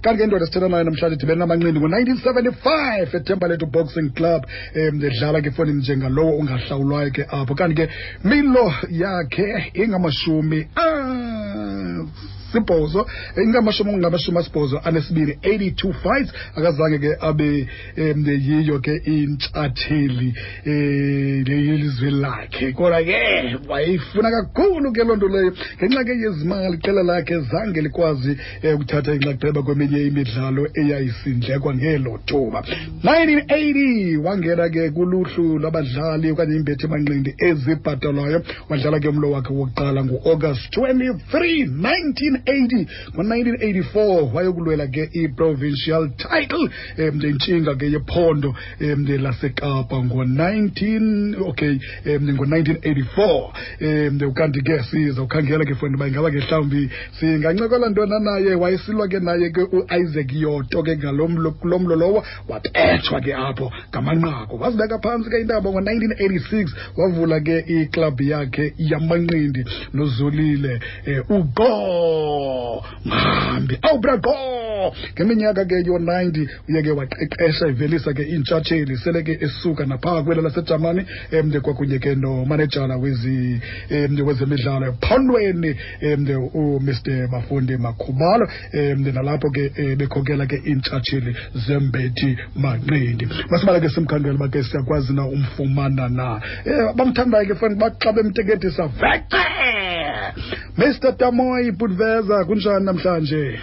Kanti ke indoda esithetha nayo namhlanje idibene namanqindi ngo-1975 eThembalethu Boxing Club, edlala ke efowunini njengalowo ungahlawulwayo ke apho. Kanti ke milo yakhe ingama-80, ingamashumi 82, 82 fights. Akazange ke abe yiyo ke intshatheli yelizwe lakhe, kodwa ke wayeyifuna kakhulu ke loo nto leyo. Ngenxa ke yezimali, iqela lakhe zange likwazi ukuthatha inxaxheba kweminye imidlalo eyayisindlekwa ngelo thuba. 1980 wangena ke kuluhlu lwabadlali okanye imbethi manqindi ezibhatalwayo. Wadlala ke umlo wakhe wokuqala ngo-August 23 1980. Ngo-1984 wayokulwela ke i-provincial title, intshinga ke yephondo laseKapa ngo-19, okay, ngo-1984. Ukanti ke sizawukhangela ke fona uba ingaba ke mhlawumbi singancokola ntona naye. Wayesilwa ke naye ke u-Isaac Yoto ke ngalo mlo, kulo mlo lowo wabethwa ke apho ngamanqaku. Wazibeka phantsi ke intaba ngo-1986, wavula ke iklabhu yakhe yamanqindi noZolile uqo Mhambi awubra qo. Ngeminyaka ke yo-90 uye ke waqeqesha, ivelisa ke iintshatsheli, sele ke esuka naphaa kwelo laseJamani, kwakunye ke nomanejala wezemidlalo ephondweni, uMr Bafundi Makhubalo, nalapho ke bekhokela ke iintshatsheli zembethi manqindi. Masibala ke simkhangela uba ke siyakwazi na umfumana na. Bamthandayo ke fana xa bemteketisa vece. Mr Tamoyi Putveza, kunjani namhlanje?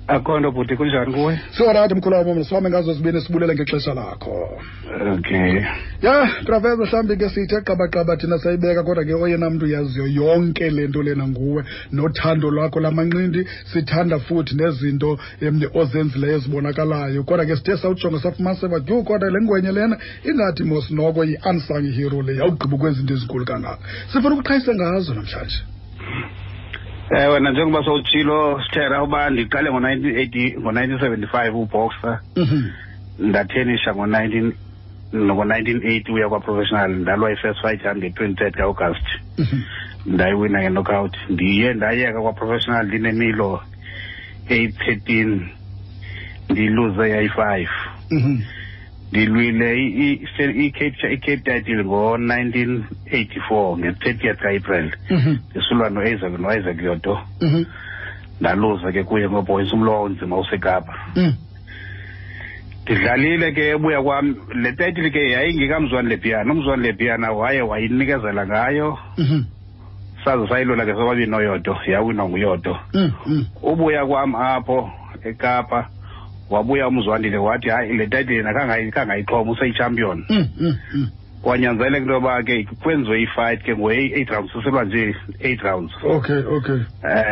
Akho nto bhuti, kunjani kuwe? Siwarathi mkhulu wam, sihambe ngazo zibini, sibulele ngexesha lakho. Okay. Ya, Traveza, mhlawumbi ke sithe qabaqaba thina sayibeka, kodwa ke oyena mntu uyaziyo yonke le nto lena nguwe, nothando lwakho lamanqindi. Sithanda futhi nezinto ozenzileyo ezibonakalayo, kodwa ke sithe sawujonga safumanisa uba yhu, kodwa le ngwenye lena ingathi mos noko yi-unsung hero le, yawugqiba ukwenza into ezinkulu kangaka. Sifuna ukuqhayise ngazo namhlanje. Ewe, njengoba sowutshilo Sithera, uba ndiqale ngo-1980, ngo-1975 uboxer. Ndathenisha ngo-1980 uya kwa-professional. Ndalwa i-first fight yam nge-23rd ka-August, ndayiwina nge-knockout. Ndiye ndayeka kwa-professional ndinemilo eyi-13, ndiluze yayi-5. Ndilwile i-Cape title ngo-1984 nge-30th ka-April, ndisulwa no-Isaac Yoto. Ndaluza ke kuye ngopoints, umlo wawunzima useKapa. Ndidlalile ke ebuya kwam le title ke yayingekamzwani Lepiana. Umzwani Lepiana waye wayinikezela ngayo, saze sayilwela ke sobabini noYoto, yawinwa nguYoto. Ubuya kwam apho eKapa, wabuya umzwandile wathi hayi, le title yena kangayixhoma, useyichampion. Kwanyanzeleka into yoba ke kwenziwe ifight ke ngo-eight rounds, sisilwa nje 8 rounds. okay okay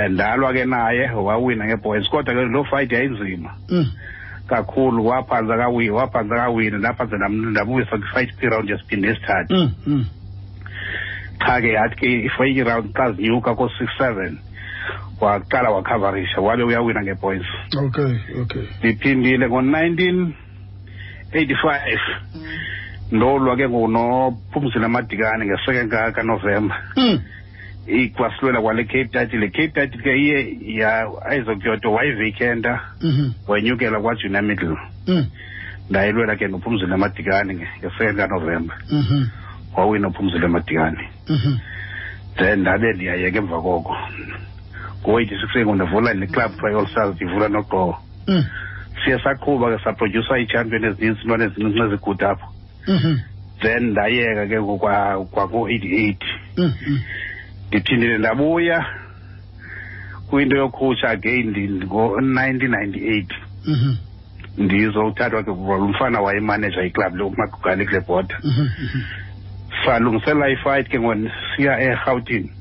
Ndalwa ke naye, wawina ngepoints, kodwa ke loo fight yayinzima kakhulu. Waphantsa kawina, waphantsa kawina, ndaphantsa ndabuyisa kwifight kwiround yesibini nesithathu. Qha ke yathi ke if iround xa zinyuka ko-6 7, waqala wakhavarisha, wabe uyawina ngepoints. okay okay Ndiphindile ngo-1985, ndolwa ke ngoku noPhumzile Madikane nge-2nd kaNovemba. Ikwasilwela kwale Cape title. Le Cape title ke iye ya Isaac Yoto wayivacanta, wenyukela kwajunior middle. Ndayilwela ke noPhumzile Madikane nge-2nd kaNovemba, wawina uPhumzile Madikane. Then ndabe ndiyayeka emva koko ngo-86 ke ndivula le club kuthiwa i-All Stars, ndivula noqowo. Siye saqhuba ke, saprodyusa iitshampion ezininzi, intwana ezincinci ezigude apho. Then ndayeka ke kwako-88. Ndiphindile ndabuya kwinto yokhutshwa again ngo-1998. Ndizowuthathwa ke lo mfana wayemaneja iclub le uMagugane kule border. Salungisela ifight ke siya eRhawutini,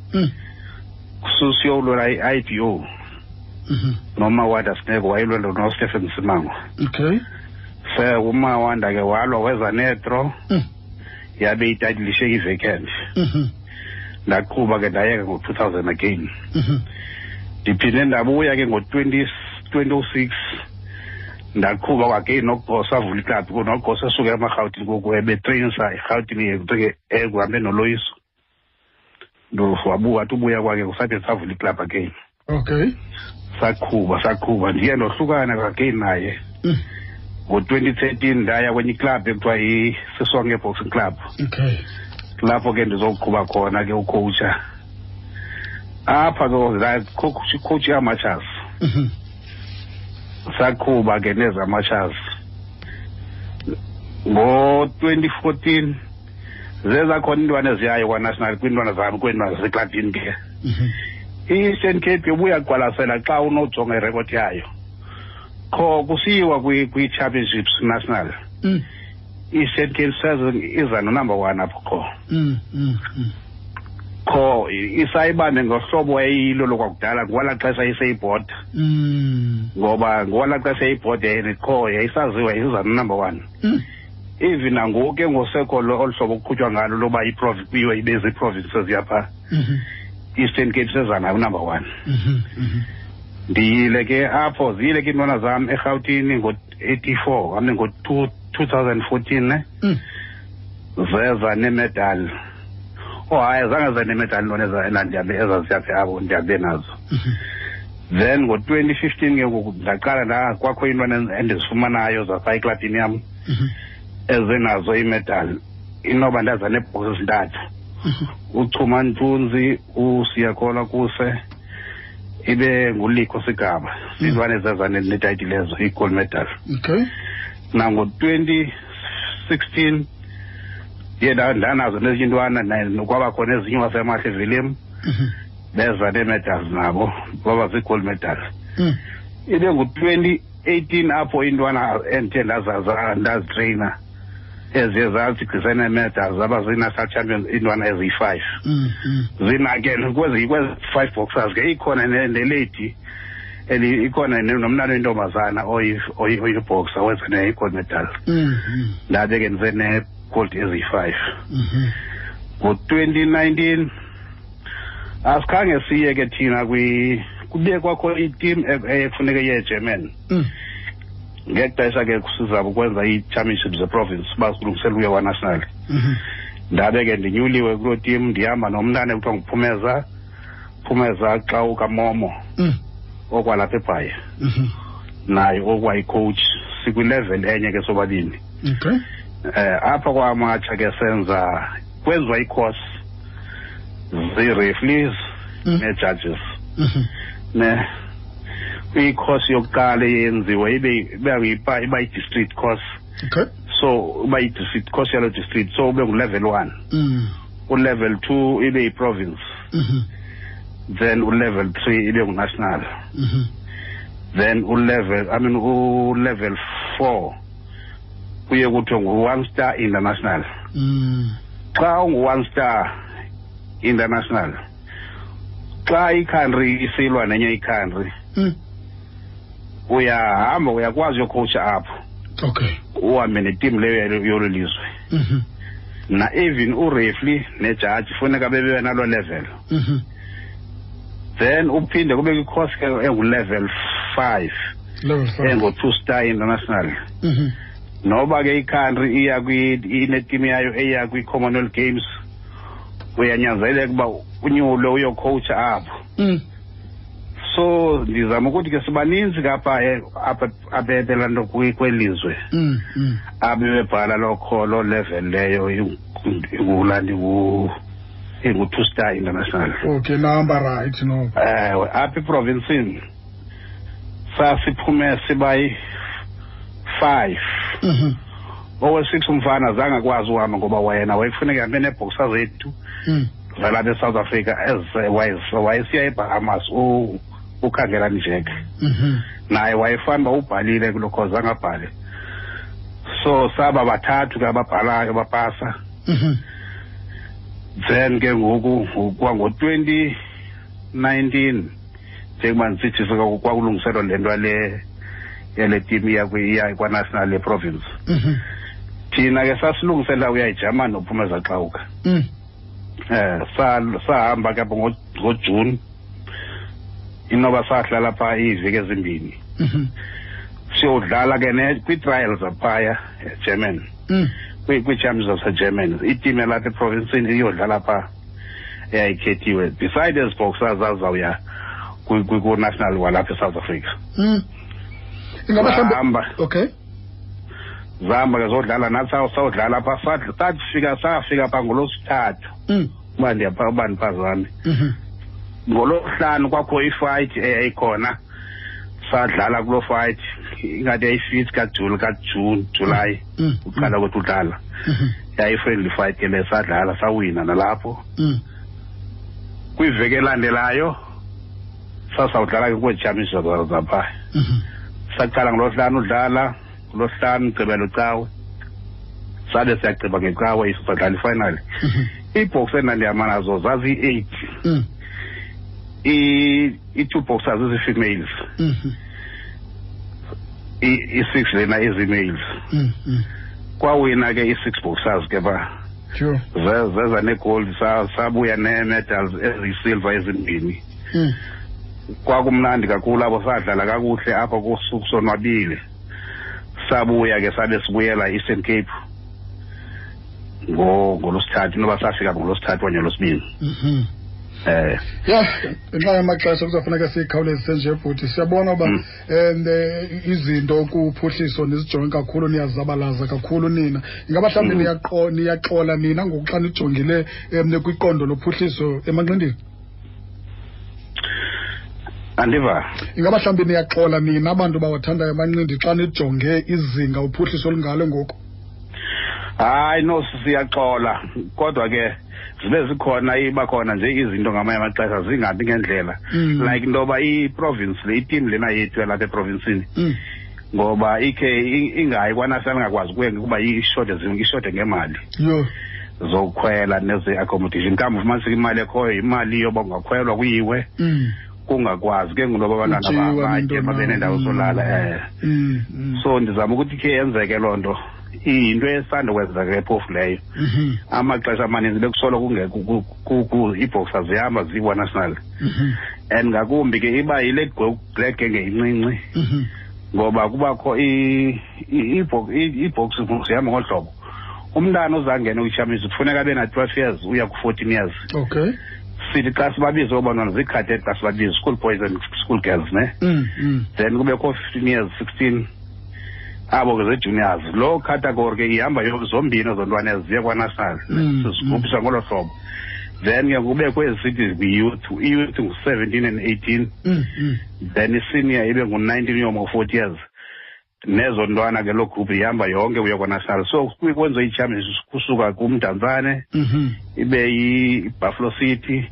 siyolwela i-IBO noMawanda Sineko, wayelwela noStephen Simango. Se uMawanda ke walwa, weza nedraw, yabe ititle ishiyeke ivacant. Ndaqhuba ke, ndayeka ngo-2000 again. Ndiphinde ndabuya ke ngo-20 2006, ndaqhuba again noGosa, avula iklabhu noGosa esuka emaRhawutini ngoku, ebetreyinisa eRhawutini ekuhambe noloyiso. Wathi ubuya kwakhe kusade savula iklabhu again. Saqhuba ndiye ndohlukana again naye. Ngo-2013 ndaya kwenye iclub ekuthiwa yi-Sisonke Boxing Club. Okay. Lapho ke ndizoqhuba khona ke ucoacha. Apha ke coach amateurs. Saqhuba ke nezamateurs. Ngo-2014 zeza khona intwana eziyayo kwa-national kwiintwana zam kwiintwana zaseklabhini ke. I-Eastern Cape ubuya kuqwalasela xa unojonga irekhodi yayo. Kho kusiyiwa kwi-championships national. I-Eastern Cape says iza no-number 1 apho kho. Kho isayibambe ngohlobo eyilo lokwakudala ngwala xesha iseyibhoda. Ngoba ngwala xesha eyibhoda kho yayisaziwa iza no-number 1. Even nangoku ke ngosekho olu hlobo kuqhutywa ngalo loba iprovince kuyiwe ibe ziiprovinces yapha. Eastern Cape seza nayo number 1. Ndiyile ke apho ziyile ke iintwana zam eRhawutini ngo-84 I mean ngo-2014 ne. Zeza nemedal. Oh hayi zange ze nemedal intwana ezaziyaphi apho ndihambe nazo. Then ngo-2015 ke ngoku ndaqala kwakho iintwana endizifumanayo zapha eklabhini yam ezenazo imedal. Inoba ndaza neebhoksi ezintathu. Uchuma Ntunzi, uSiyakhola Kuse, ibe nguLikho Sigaba. Zintwana ezeza netayitile ezo, i-gold medal. Okay. Nango-2016 ndiye ndanazo nezinye intwana kwaba khona ezinye wasemahle Vilem. Beza nee-medals nabo, baba zii-gold medals. Ibe ngu-2018 apho intwana endithe ndazitreyina eziye zathi gqisa nee-medals zaba zii-national champions iintwana eziyi-5. Zina ke kwezi 5 boxers ke ikhona nelady ikhona nomntana oyintombazana oyiboxer wenza ne-gold medal. Ndabe ke ndize ne-gold eziyi-5. Ngo-2019 asikhange siye ke thina kube kwakho i-team ekufuneka iye eGermany. Ngexesha ke sizama ukwenza ii-championships zeprovince uba silungisela ukuya kwa-national. Ndabe ke ndinyuliwe kuloo team ndihamba nomntana ekuthiwa nguPhumeza, Phumeza xa ukaMomo okwalapha eBhayi. Naye okwayi-coach sikwi-level enye ke sobabini. Okay. Apha kwamatsha ke senza kwenziwa i-course zii-referees nee-judges. Ne i-course yokuqala eyenziwa iba yi-district course. Okay. So iba yi-district course yalo district, so ube ngu-level 1. U-level 2 ibe yi-province. Then u-level 3 ibe ngu-national. Then u-level 4 kuye kuthiwe ngu-one star international. Xa ungu-one star international, xa i-country isilwa nenye i-country, uyahamba uyakwazi uyocoacha apho. Okay. Uhambe neteam leyo yolo lizwe. Na even ureferee nejudge funeka bebe nalo level. Then uphinde kube kwi-course ke engu-level 5. Level 5. Engu-2 star international. Noba ke i-country iya ineteam yayo eya kwi-Commonwealth Games, uyanyanzeleka uba unyulwe uyocoacha apho. So ndizama ukuthi ke sibaninzi kapha apha ebelanto kwelizwe. Abebebhala lokho lo level leyo ingulandi ingu-2 star international. Okay, number right no. Apha eprovinsini sasiphume sibayi 5. Owe-6 umfana zange akwazi uhamba ngoba yena wayefuneka ahambe neebhoxa zethu zalapha eSouth Africa wayesiya eBahamas ukhangela Njeke. Naye wayefana uba ubhalile kuloo course angabhali. So saba bathathu ke ababhalayo bapasa. Then ke ngoku kwango-2019 njengoba ndisithi kwakulungiselwa le nto yale team iya kwa-national ye-province. Thina ke sasilungisela uya eJamani noPhumeza Xawuka. Sahamba ke apho ngoJune. Inoba sahlala phaa iiveki ezimbini. Siyodlala ke kwii-trials zaphaya eGermany. Kwii-champions zaseGermany. Iteam yalapha eprovinsini iyodlala phaa eyayikhethiwe. Beside ezi boxers zazawuya Ku-national walapha eSouth Africa. Ingaba mhlawumbe, okay. Zahamba ke zodlala nathi, sawudlala pha, safika safika pha ngolosithathu. Uba ndiyapha, uba ndiphazame. Ngolosihlanu kwakho ifight eyayikhona, sadlala kuloo fight, ingathi yayi-fifth kaJuni, kaJuni, July. Uqala kwethu udlala. Yayi-friendly fight ke le, sadlala sawina nalapho. Kwiveki elandelayo sasawudlala ke kwezi championship zapha. Saqala ngolosihlanu udlala, ngolosihlanu, Mgqibelo, Cawe. Sabe siyagqiba ngecawe iso sadlala ifinal. Iibox endandihamba nazo zaziyi-8. I-two boxers izi-females. I-six lena izi-males. Kwawina ke i-six boxers ke ba. Zeza negold, sabuya nee-medals eziyi-silver ezimbini. Kwakumnandi kakhulu apho, sadlala kakuhle apho kusonwabile. Sabuya ke, sabe sibuyela Eastern Cape ngolosithathu, noba safika ngolosithathu okanye ngolosibini. Ya, ngenxa yamaxesha kuzafuneka siyikhawulezise nje, bhuti. Siyabona uba izinto kuphuhliso nizijonge kakhulu, niyazabalaza kakhulu nina. Ingaba mhlawumbi niyaxola nina ngoku xa nijongile kwiqondo lophuhliso emanqindini? Andiva. Ingaba mhlawumbi niyaxola nina abantu bawathandayo amanqindi xa nijonge izinga uphuhliso olungalo ngoku? Hayi no, siyaxola, kodwa ke zibe zikhona, iba khona nje izinto ngamanye amaxesha zingabi ngendlela. Like into yoba i-province le, iteam lena yethu yalapha eprovinsini, ngoba ikhe ingayi kwanational, ingakwazi kuye kuba ishote, ishote ngemali zokukhwela neze-accommodation. Kambe ufumaniseka imali ekhoyo imali yoba kungakhwelwa kuyiwe, kungakwazi ke ngoku abantwana Kutyiwa batye, nento babe nendawo zolala. So ndizama ukuthi khe yenzeke loo nto, iyinto esanda kwenzeka ke phofu leyo. Amaxesha amaninzi bekusolo kungekho, iiboxer zihamba zikwa-national. And ngakumbi ke iba yile black gang incinci, ngoba kubakho iibox zihamba ngolu hlobo: umntana ozangena kwi-championship kufuneka abe na-12 years uya ku-14 years. Sithi xa sibabize oobantwana zii-cadet, xa sibabize school boys and school girls ne. Then kubekho 15 years, 16, abo ke zii-juniors. Loo category ke ihamba zombini ezo ntwana ezi ziye kwanational. Sizigruphisa ngolo hlobo. Then ke kubekho ezi sithi kwi-youth, i-youth ngu-17 and 18. Then i-senior ibe ngu-19 uyoma ku-40 years. Nezo ntwana ke loo group ihamba yonke kuya kwanational. So kwenziwe ii-championship kusuka kuMdantsane, ibe yi-Buffalo City,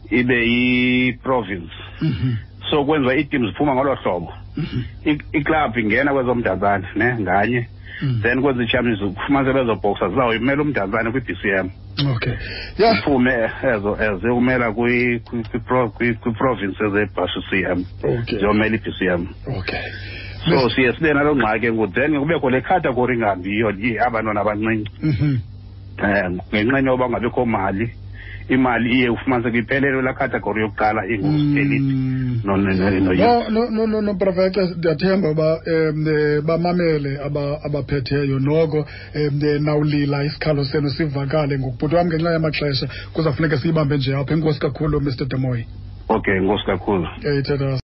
ibe yi-province. So kwenziwa ii-teams ziphuma ngolo hlobo. Iklabhu ingena kwezoMdantsane ne nganye. Then kwenziwa ii-championship, kufumanise bezo boxer zizawuyimela uMdantsane kwi-BCM. Okay. Yeah. Iphume ezo eziyokumela kwi-province eze-BCM. Ziyomela i-BCM. So siye sibe naloo ngxaki ngoku, then kubekho le category ingahambiyo, abantwana abancinci. Ngenxa yoba kungabikho mali, imali iye ufumaniseke iphelele laa category yokuqala ingu-elite. No, no, no, no, No, no, no, no, no, Professor, ndiyathemba uba bamamele abaphetheyo noko, nawulila isikhalo senu sivakale ngokubhuti wam. Ngenxa yamaxesha kuzawufuneka siyibambe nje apha. Enkosi kakhulu, Mr Damoyi. Okay, enkosi kakhulu. Thetha.